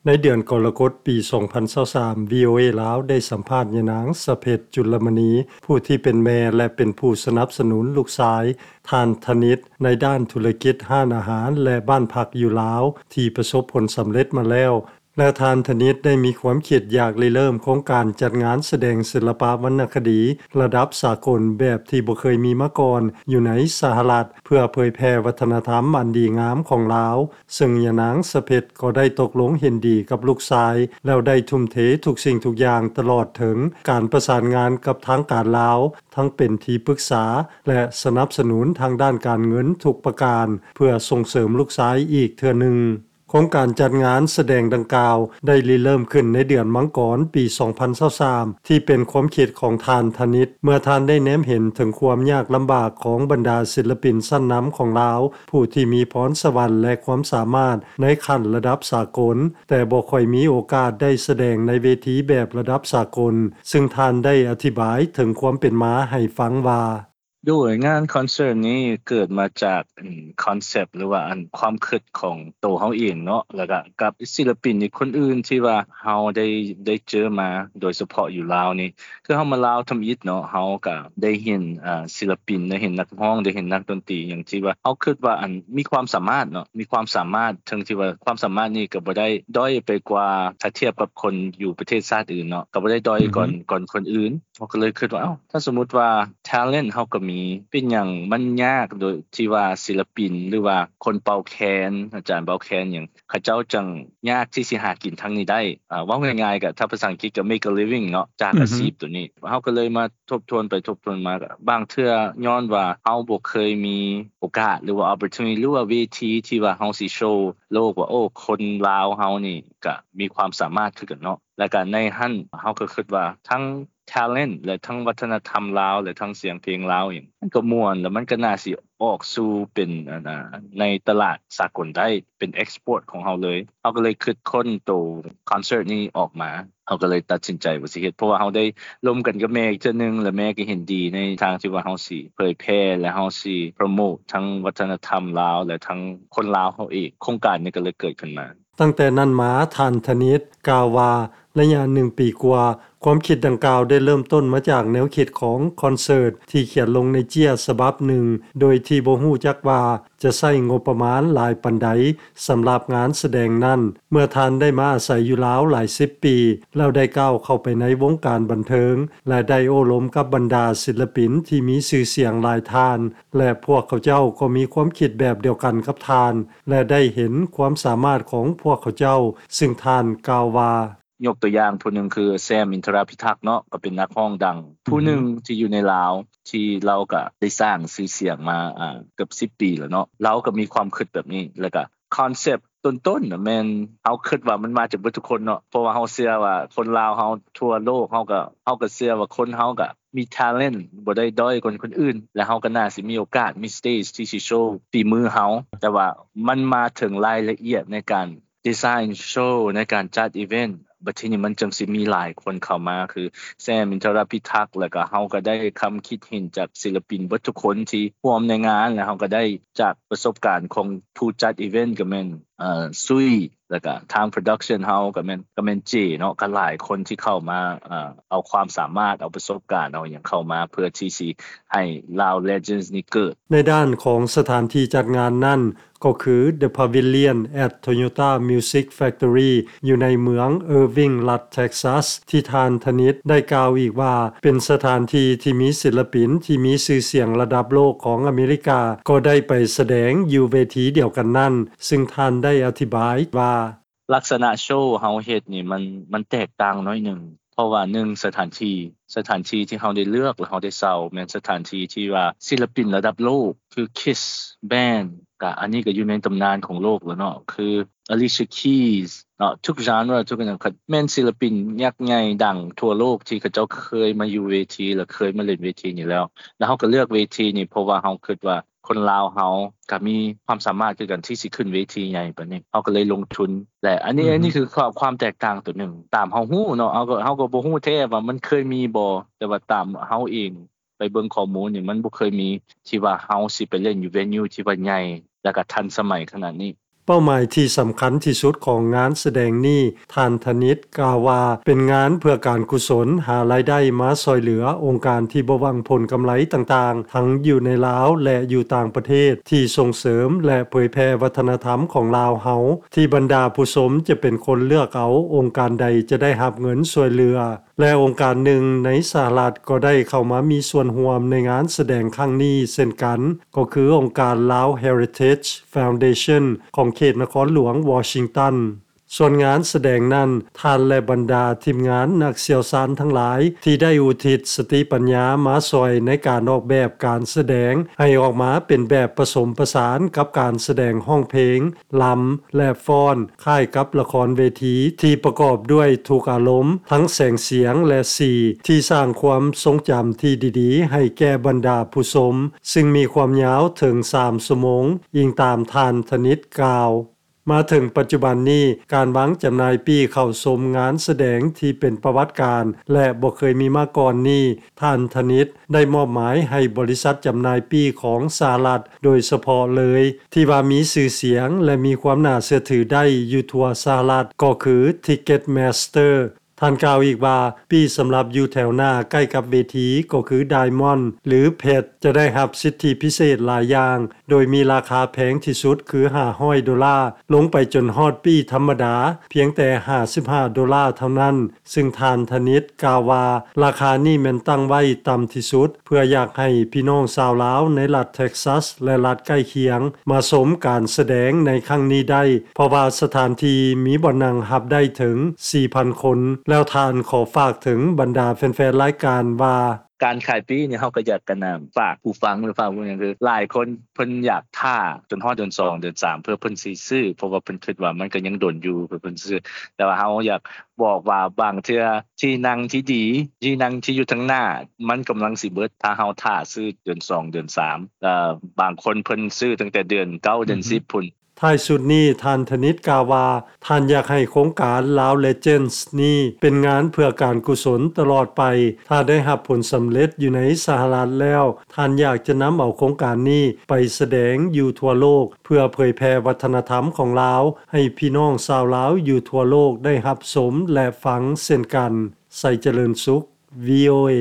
ໃນເດືອນກໍລະກົດປີສອງພັນຊາວສາມ ວີໂອເອ ລາວໄດ້ສຳພາດຍານາງ ສະເພັດ ຈຸລະມະນີ ຜູ້ທີ່ເປັນແມ່ ແລະ ເປັນຜູ້ສະໜັບສະໜູນລູກຊາຍ ທ່ານ ທະນິດ ໃນດ້ານທຸລະກິດຮ້ານອາຫານ ແລະ ບ້ານພັກຢູ່ລາວ ທີ່ປະສົບຜົນສຳເລັດມາແລ້ວ ແລະ ທ່ານ ທະນິດ ໄດ້ມີຄວາມຄິດຢາກລິເລີ່ມໂຄງການຈັດງານສະແດງສິລະປະວັນນະຄະດີລະດັບສາກົນແບບທີ່ບໍ່ເຄີຍມີມາກ່ອນຢູ່ໃນສະຫະລັດ ເພື່ອເຜີຍແຜ່ວັດທະນະທຳອັນດີງາມຂອງລາວ, ເຊິ່ງຍານາງ ສະເພັດ ກໍໄດ້ຕົກລົງເຫັນດີກັບລູກຊາຍ ແລ້ວໄດ້ທຸ່ມເທທຸກສິ່ງທຸກຢ່າງ ຕະຫຼອດເຖິງການປະສານງານກັບທາງການລາວ, ທັງເປັນທີ່ປຶກສາ ແລະ ສະໜັບສະໜູນທາງດ້ານການເງິນທຸກປະການ ເພື່ອສົ່ງເສີມລູກຊາຍອີກເທື່ອໜຶ່ງ. ໂຄງການຈັດງານສະແດງດັ່ງກ່າວໄດ້ລິເລີ່ມຂຶ້ນໃນເດືອນມັງກອນປີສອງພັນຊາວສາມ ທີ່ເປັນຄວາມຄິດຂອງທ່ານ ທະນິດ ເມື່ອທ່ານໄດ້ແນມເຫັນເຖິງຄວາມຍາກລຳບາກຂອງບັນດາສິລະປິນຊັ້ນນຳຂອງລາວ ຜູ້ທີ່ມີພອນສະຫວັນ ແລະ ຄວາມສາມາດໃນຂັ້ນລະດັບສາກົນ ແຕ່ບໍ່ຄ່ອຍມີໂອກາດໄດ້ສະແດງໃນເວທີແບບລະດັບສາກົນ, ເຊິ່ງທ່ານໄດ້ອະທິບາຍເຖິງຄວາມເປັນມາໃຫ້ຟັງວ່າ ໂດຍ ງານຄອນເສີດນີ້ເກີດມາຈາກ ອືມ ຄອນເຊັບ ຫຼືວ່າ ອັນ ຄວາມຄິດຂອງໂຕເຮົາເອງເນາະ ແລ້ວກະກັບສິລະປິນອີກຄົນອື່ນທີ່ວ່າເຮົາໄດ້ ໄດ້ເຈີມາ ໂດຍສະເພາະຢູ່ລາວນີ້ ຄືເຮົາມາລາວທຳອິດເນາະ ເຮົາກະໄດ້ເຫັນ ອາ ສິລະປິນ ໄດ້ເຫັນນັກຮ້ອງ ໄດ້ເຫັນນັກດົນຕີຫຍັງທີ່ວ່າເຮົາຄິດວ່າ ອັນ ມີຄວາມສາມາດເນາະ ມີຄວາມສາມາດ ເຊິ່ງທີ່ວ່າຄວາມສາມາດນີ້ກະບໍ່ໄດ້ດ້ອຍໄປກວ່າ ຖ້າທຽບກັບຄົນຢູ່ປະເທດຊາດອື່ນເນາະ ກະບໍ່ໄດ້ດ້ອຍກ່ອນ ອືຮຶ ກ່ອນຄົນອື່ນ. ເຮົາກໍເລີຍຄິດວ່າ ເອົ້າ ຖ້າສົມມຸດວ່າ talent ເຮົາກໍມີ ເປັນຫຍັງມັນຍາກໂດຍທີ່ວ່າສິລະປິນ ຫຼືວ່າຄົນເປົ່າແຄນ ອາຈານເປົ່າແຄນຫຍັງ ເຂົາເຈົ້າຈັ່ງຍາກທີ່ຊິຫາກິນທາງນີ້ໄດ້? ອາ ເວົ້າງ່າຍໆ ກໍ ຖ້າພາສາອັງກິດກໍ make a living ເນາະ ຈາກ ອືຮຶ ອາຊີບໂຕນີ້. ເຮົາກໍເລີຍມາທົບທວນໄປທົບທວນມາ ກໍບາງເທື່ອຍ້ອນວ່າເຮົາບໍ່ເຄີຍມີໂອກາດ ຫຼືວ່າ opportunity ຫຼືວ່າເວທີທີ່ວ່າເຮົາຊິໂຊໂລກວ່າ ໂອ້ ຄົນລາວເຮົານີ້ກໍມີຄວາມສາມາດຄືກັນເນາະ. ແລ້ວກໍໃນຫັ້ນເຮົາກໍຄິດວ່າທັງ talent ແລະ ທັງວັດທະນະທຳລາວ ແລະ ທັງສຽງເພງລາວຫຍັງ ມັນກໍມ່ວນ ແລ້ວມັນກໍໜ້າຊິອອກສູ່ເປັນ ອັນ ໃນຕະຫຼາດສາກົນໄດ້ ເປັນ export ຂອງເຮົາເລີຍ. ເຮົາກໍເລີຍຄິດຄົ້ນໂຕຄອນເສີດນີ້ອອກມາ ເຮົາກໍເລີຍຕັດສິນໃຈວ່າຊິເຮັດ ເພາະວ່າເຮົາໄດ້ລົມກັນກັບແມ່ອີກເທື່ອໜຶ່ງ ແລະ ແມ່ກໍເຫັນດີໃນທາງທີ່ວ່າເຮົາຊິເຜີຍແຜ່ ແລະ ເຮົາຊິໂປຣໂມດທັງວັດທະນະທຳລາວ ແລະ ທັງຄົນລາວເຮົາເອງ. ໂຄງການນີ້ກໍເລີຍເກີດຂຶ້ນມາ. ຕັ້ງແຕ່ນັ້ນມາ ທ່ານ ທະນິດ ກ່າວວ່າ ໄລຍະໜຶ່ງປີກວ່າ, ຄວາມຄິດດັ່ງກ່າວໄດ້ເລີ່ມຕົ້ນມາຈາກແນວຄິດຂອງຄອນເສີດທີ່ຂຽນລົງໃນເຈ້ຍສະບັບໜຶ່ງ ໂດຍທີ່ບໍ່ຮູ້ຈັກວ່າຈະໃຊ້ງົບປະມານຫຼາຍປານໃດສຳລັບງານສະແດງນັ້ນ. ເມື່ອທ່ານໄດ້ມາອາໄສຢູ່ລາວຫຼາຍສິບປີ ແລ້ວໄດ້ກ້າວເຂົ້າໄປໃນວົງການບັນເທີງ ແລະ ໄດ້ໂອ້ລົມກັບບັນດາສິລະປິນທີ່ມີຊື່ສຽງຫຼາຍທ່ານ ແລະ ພວກເຂົາເຈົ້າກໍມີຄວາມຄິດແບບດຽວກັນກັບທ່ານ ແລະ ໄດ້ເຫັນຄວາມສາມາດຂອງພວກເຂົາເຈົ້າ, ເຊິ່ງທ່ານກ່າວວ່າ ຍົກຕົວຢ່າງຜູ້ໜຶ່ງຄື ແຊມ ອິນທະຣາພິທັກ ເນາະ ກໍເປັນນັກຮ້ອງດັງ ອືຮຶ ຜູ້ໜຶ່ງທີ່ຢູ່ໃນລາວ ທີ່ລາວກໍໄດ້ສ້າງຊື່ສຽງມາ ອາ ເກືອບສິບປີແລ້ວເນາະ. ລາວກໍມີຄວາມຄິດແບບນີ້ ແລ້ວກໍຄອນເຊັບຕົ້ນໆນະ ແມ່ນເຮົາຄິດວ່າມັນມາຈາກເບິດທຸກຄົນເນາະ ເພາະວ່າເຮົາເຊື່ອວ່າຄົນລາວເຮົາທົ່ວໂລກ ເຮົາກໍ ເຮົາກໍເຊື່ອວ່າຄົນເຮົາກໍມີ talent ບໍ່ໄດ້ດ້ອຍກວ່າຄົນອື່ນ ແລະ ເຮົາກໍໜ້າຊິມີໂອກາດ ມີ stage ທີ່ຊິໂຊຝີມືເຮົາ. ແຕ່ວ່າມັນມາເຖິງລາຍລະອຽດໃນການ design show ໃນການຈັດ event ບັດທີນີ້ມັນຈຶ່ງຊິມີຫຼາຍຄົນເຂົ້າມາ ຄື ແຊມ ອິນທະຣາພິທັກ ແລ້ວກໍເຮົາກໍໄດ້ຄຳຄິດເຫັນຈາກສິລະປິນເບິດທຸກຄົນທີ່ຮ່ວມໃນງານ ແລ້ວເຮົາກໍໄດ້ຈາກປະສົບການຂອງຜູ້ຈັດ event ກໍແມ່ນ ເອີ ຊຸຍ ແລ້ວກໍທາງ production ເຮົາກໍແມ່ນ ກໍແມ່ນເຈເນາະ ກໍຫຼາຍຄົນທີ່ເຂົ້າມາ ເອີ ເອົາຄວາມສາມາດ ເອົາປະສົບການ ເອົາຫຍັງເຂົ້າມາ ເພື່ອທີ່ຊິໃຫ້ Lao Legends ນີ້ເກີດ. ໃນດ້ານຂອງສະຖານທີ່ຈັດງານນັ້ນ ກໍຄື The Pavilion at Toyota Music Factory ຢູ່ໃນເມືອງ Irving ລັດ Texas ທີ່ທ່ານ ທະນິດ ໄດ້ກ່າວອີກວ່າ ເປັນສະຖານທີ່ທີ່ມີສິລະປິນທີ່ມີຊື່ສຽງລະດັບໂລກຂອງອາເມລິກາ ກໍໄດ້ໄປສະແດງຢູ່ເວທີດຽວກັນນັ້ນ, ເຊິ່ງທ່ານໄດ້ອະທິບາຍວ່າ ລັກສະນະໂຊເຮົາເຮັດນີ້ ມັນ ມັນແຕກຕ່າງໜ້ອຍໜຶ່ງ ເພາະວ່າ ໜຶ່ງ ສະຖານທີ່ ສະຖານທີ່ທີ່ເຮົາໄດ້ເລືອກ ແລະ ເຮົາໄດ້ເຊົ່າ ແມ່ນສະຖານທີ່ທີ່ວ່າສິລະປິນລະດັບໂລກ ຄື Kiss Band ກະ ອັນນີ້ກະຢູ່ໃນຕຳນານຂອງໂລກແລ້ວເນາະ ຄື Alicia Keys ເນາະ ທຸກ genre ທຸກຫຍັງ ແມ່ນສິລະປິນຍັກໃຫຍ່ດັງທົ່ວໂລກທີ່ເຂົາເຈົ້າເຄີຍມາຢູ່ເວທີ ແລະ ເຄີຍມາຫຼິ້ນເວທີນີ້ແລ້ວ ແລ້ວເຮົາກະເລືອກເວທີນີ້ ເພາະວ່າເຮົາຄິດວ່າ ຄົນລາວເຮົາກະມີຄວາມສາມາດຄືກັນທີ່ຊິຂຶ້ນເວທີໃຫຍ່ປານນີ້ ເຮົາກະເລີຍລົງທຶນ ແລະ ອັນນີ້ ອືຮຶ ອັນນີ້ຄືຄວາມ ຄວາມແຕກຕ່າງໂຕໜຶ່ງ ຕາມເຮົາຮູ້ເນາະ ເຮົາກະ ເຮົາກະບໍ່ຮູ້ແທ້ວ່າມັນເຄີຍມີບໍ່ ແຕ່ວ່າຕາມເຮົາເອງໄປເບິ່ງຂໍ້ມູນນີ້ ມັນບໍ່ເຄີຍມີທີ່ວ່າເຮົາຊິໄປຫຼິ້ນຢູ່ venue ທີ່ວ່າໃຫຍ່ ແລະກະທັນສະໄໝຂະໜາດນີ້. ເປົ້າໝາຍທີ່ສຳຄັນທີ່ສຸດຂອງງານສະແດງນີ້, ທ່ານທະນິດກ່າວວ່າ ເປັນງານເພື່ອການກຸສົນ, ຫາລາຍໄດ້ມາຊ່ອຍເຫຼືອອົງການທີ່ບໍ່ຫວັງຜົນກຳໄລຕ່າງໆ ທັງຢູ່ໃນລາວ ແລະ ຢູ່ຕ່າງປະເທດ ທີ່ສົ່ງເສີມ ແລະ ເຜີຍແຜ່ວັດທະນະທຳຂອງລາວເຮົາ, ທີ່ບັນດາຜູ້ຊົມຈະເປັນຄົນເລືອກເອົາອົງການໃດຈະໄດ້ຮັບເງິນຊ່ວຍເຫຼືອ. ແລະ ອົງການໜຶ່ງໃນສະຫະລັດກໍໄດ້ເຂົ້າມາມີສ່ວນຮ່ວມໃນງານສະແດງຄັ້ງນີ້ເຊັ່ນກັນ, ກໍຄືອົງການ Lao Heritage Foundation ຂອງເຂດນະຄອນຫຼວງວໍຊິງຕັນ. ສ່ວນງານສະແດງນັ້ນ, ທ່ານ ແລະ ບັນດາທີມງານນັກຊ່ຽວຊານທັງຫຼາຍ ທີ່ໄດ້ອຸທິດສະຕິປັນຍາມາຊ່ອຍໃນການອອກແບບການສະແດງ ໃຫ້ອອກມາເປັນແບບປະສົມປະສານກັບການສະແດງຮ້ອງເພງ, ລຳ ແລະ ຟ້ອນ, ຄ້າຍກັບລະຄອນເວທີທີ່ປະກອບດ້ວຍທຸກອາລົມ, ທັງແສງສຽງ ແລະ ສີ ທີ່ສ້າງຄວາມຊົງຈຳທີ່ດີໆໃຫ້ແກ່ບັນດາຜູ້ຊົມ, ຊຶ່ງມີຄວາມຍາວເຖິງສາມຊົ່ວໂມງ, ອີງຕາມທ່ານທະນິດກ່າວ. ມາເຖິງປັດຈຸບັນນີ້, ການວາງຈຳໜ່າຍປີ້ເຂົ້າຊົມງານສະແດງທີ່ເປັນປະຫວັດການ ແລະ ບໍ່ເຄີຍມີມາກ່ອນນີ້, ທ່ານທະນິດໄດ້ມອບໝາຍໃຫ້ບໍລິສັດຈຳໜ່າຍປີ້ຂອງສະຫະລັດໂດຍສະເພາະເລີຍ ທີ່ວ່າມີຊື່ສຽງ ແລະ ມີຄວາມໜ້າເຊື່ອຖືໄດ້ຢູ່ທົ່ວສະຫະລັດ ກໍຄື Ticketmaster. ທ່ານກ່າວອີກວ່າ, ປີ້ສຳລັບຢູ່ແຖວໜ້າໃກ້ກັບເວທີ ກໍຄື Diamond ຫຼື ເພັດ ຈະໄດ້ຮັບສິດທິພິເສດຫຼາຍຢ່າງ, ໂດຍມີລາຄາແພງທີ່ສຸດຄືຫ້າຮ້ອຍໂດລາ, ລົງໄປຈົນຮອດປີ້ທຳມະດາ ພຽງແຕ່ຫ້າສິບຫ້າໂດລາເທົ່ານັ້ນ, ຊຶ່ງທ່ານທະນິດກ່າວວ່າ ລາຄານີ້ແມ່ນຕັ້ງໄວ້ຕ່ຳທີ່ສຸດ ເພື່ອຢາກໃຫ້ພີ່ນ້ອງຊາວລາວໃນລັດເທັກຊັສ ແລະ ລັດໃກ້ຄຽງ ມາຊົມການສະແດງໃນຄັ້ງນີ້ໄດ້, ເພາະວ່າສະຖານທີ່ມີບ່ອນນັ່ງຮັບໄດ້ເຖິງສີ່ພັນຄົນ. ແລ້ວທ່ານຂໍຝາກເຖິງບັນດາແຟນໆລາຍການວ່າ, ການຂາຍປີ້ນີ້ ເຮົາກໍຢາກ ອັນນ່າ ຝາກຜູ້ຟັງ ຫຼື ຝາກຜູ້ຫຍັງ ຄືຫຼາຍຄົນເພິ່ນຢາກຖ້າຈົນຮອດເດືອນສອງ ເດືອນສາມ ເພື່ອເພິ່ນຊິຊື້, ເພາະວ່າເພິ່ນຄິດວ່າມັນກໍຍັງດົນຢູ່ ເພື່ອເພິ່ນຊິຊື້. ແຕ່ວ່າເຮົາຢາກບອກວ່າ ບາງເທື່ອທີ່ນັ່ງທີ່ດີ ທີ່ນັ່ງທີ່ຢູ່ທາງໜ້າ ມັນກຳລັງຊິເບິດ ຖ້າເຮົາຖ້າຊື້ເດືອນສອງ ເດືອນສາມ ແລະ ບາງຄົນເພິ່ນຊື້ຕັ້ງແຕ່ເດືອນເກົ້າ ເດືອນສິບພຸ້ນ. ທ້າຍສຸດນີ້, ທ່ານທະນິດກ່າວວ່າ ທ່ານຢາກໃຫ້ໂຄງການ Lao Legends ນີ້ເປັນງານເພື່ອການກຸສົນຕະຫຼອດໄປ. ຖ້າໄດ້ຮັບຜົນສຳເລັດຢູ່ໃນສະຫະລັດແລ້ວ, ທ່ານຢາກຈະນຳເອົາໂຄງການນີ້ໄປສະແດງຢູ່ທົ່ວໂລກ ເພື່ອເຜີຍແຜ່ວັດທະນະທຳຂອງລາວ ໃຫ້ພີ່ນ້ອງຊາວລາວຢູ່ທົ່ວໂລກໄດ້ຮັບຊົມ ແລະ ຟັງເຊັ່ນກັນ. ໄຊຈະເລີນສຸກ ວີ ໂອ ເອ.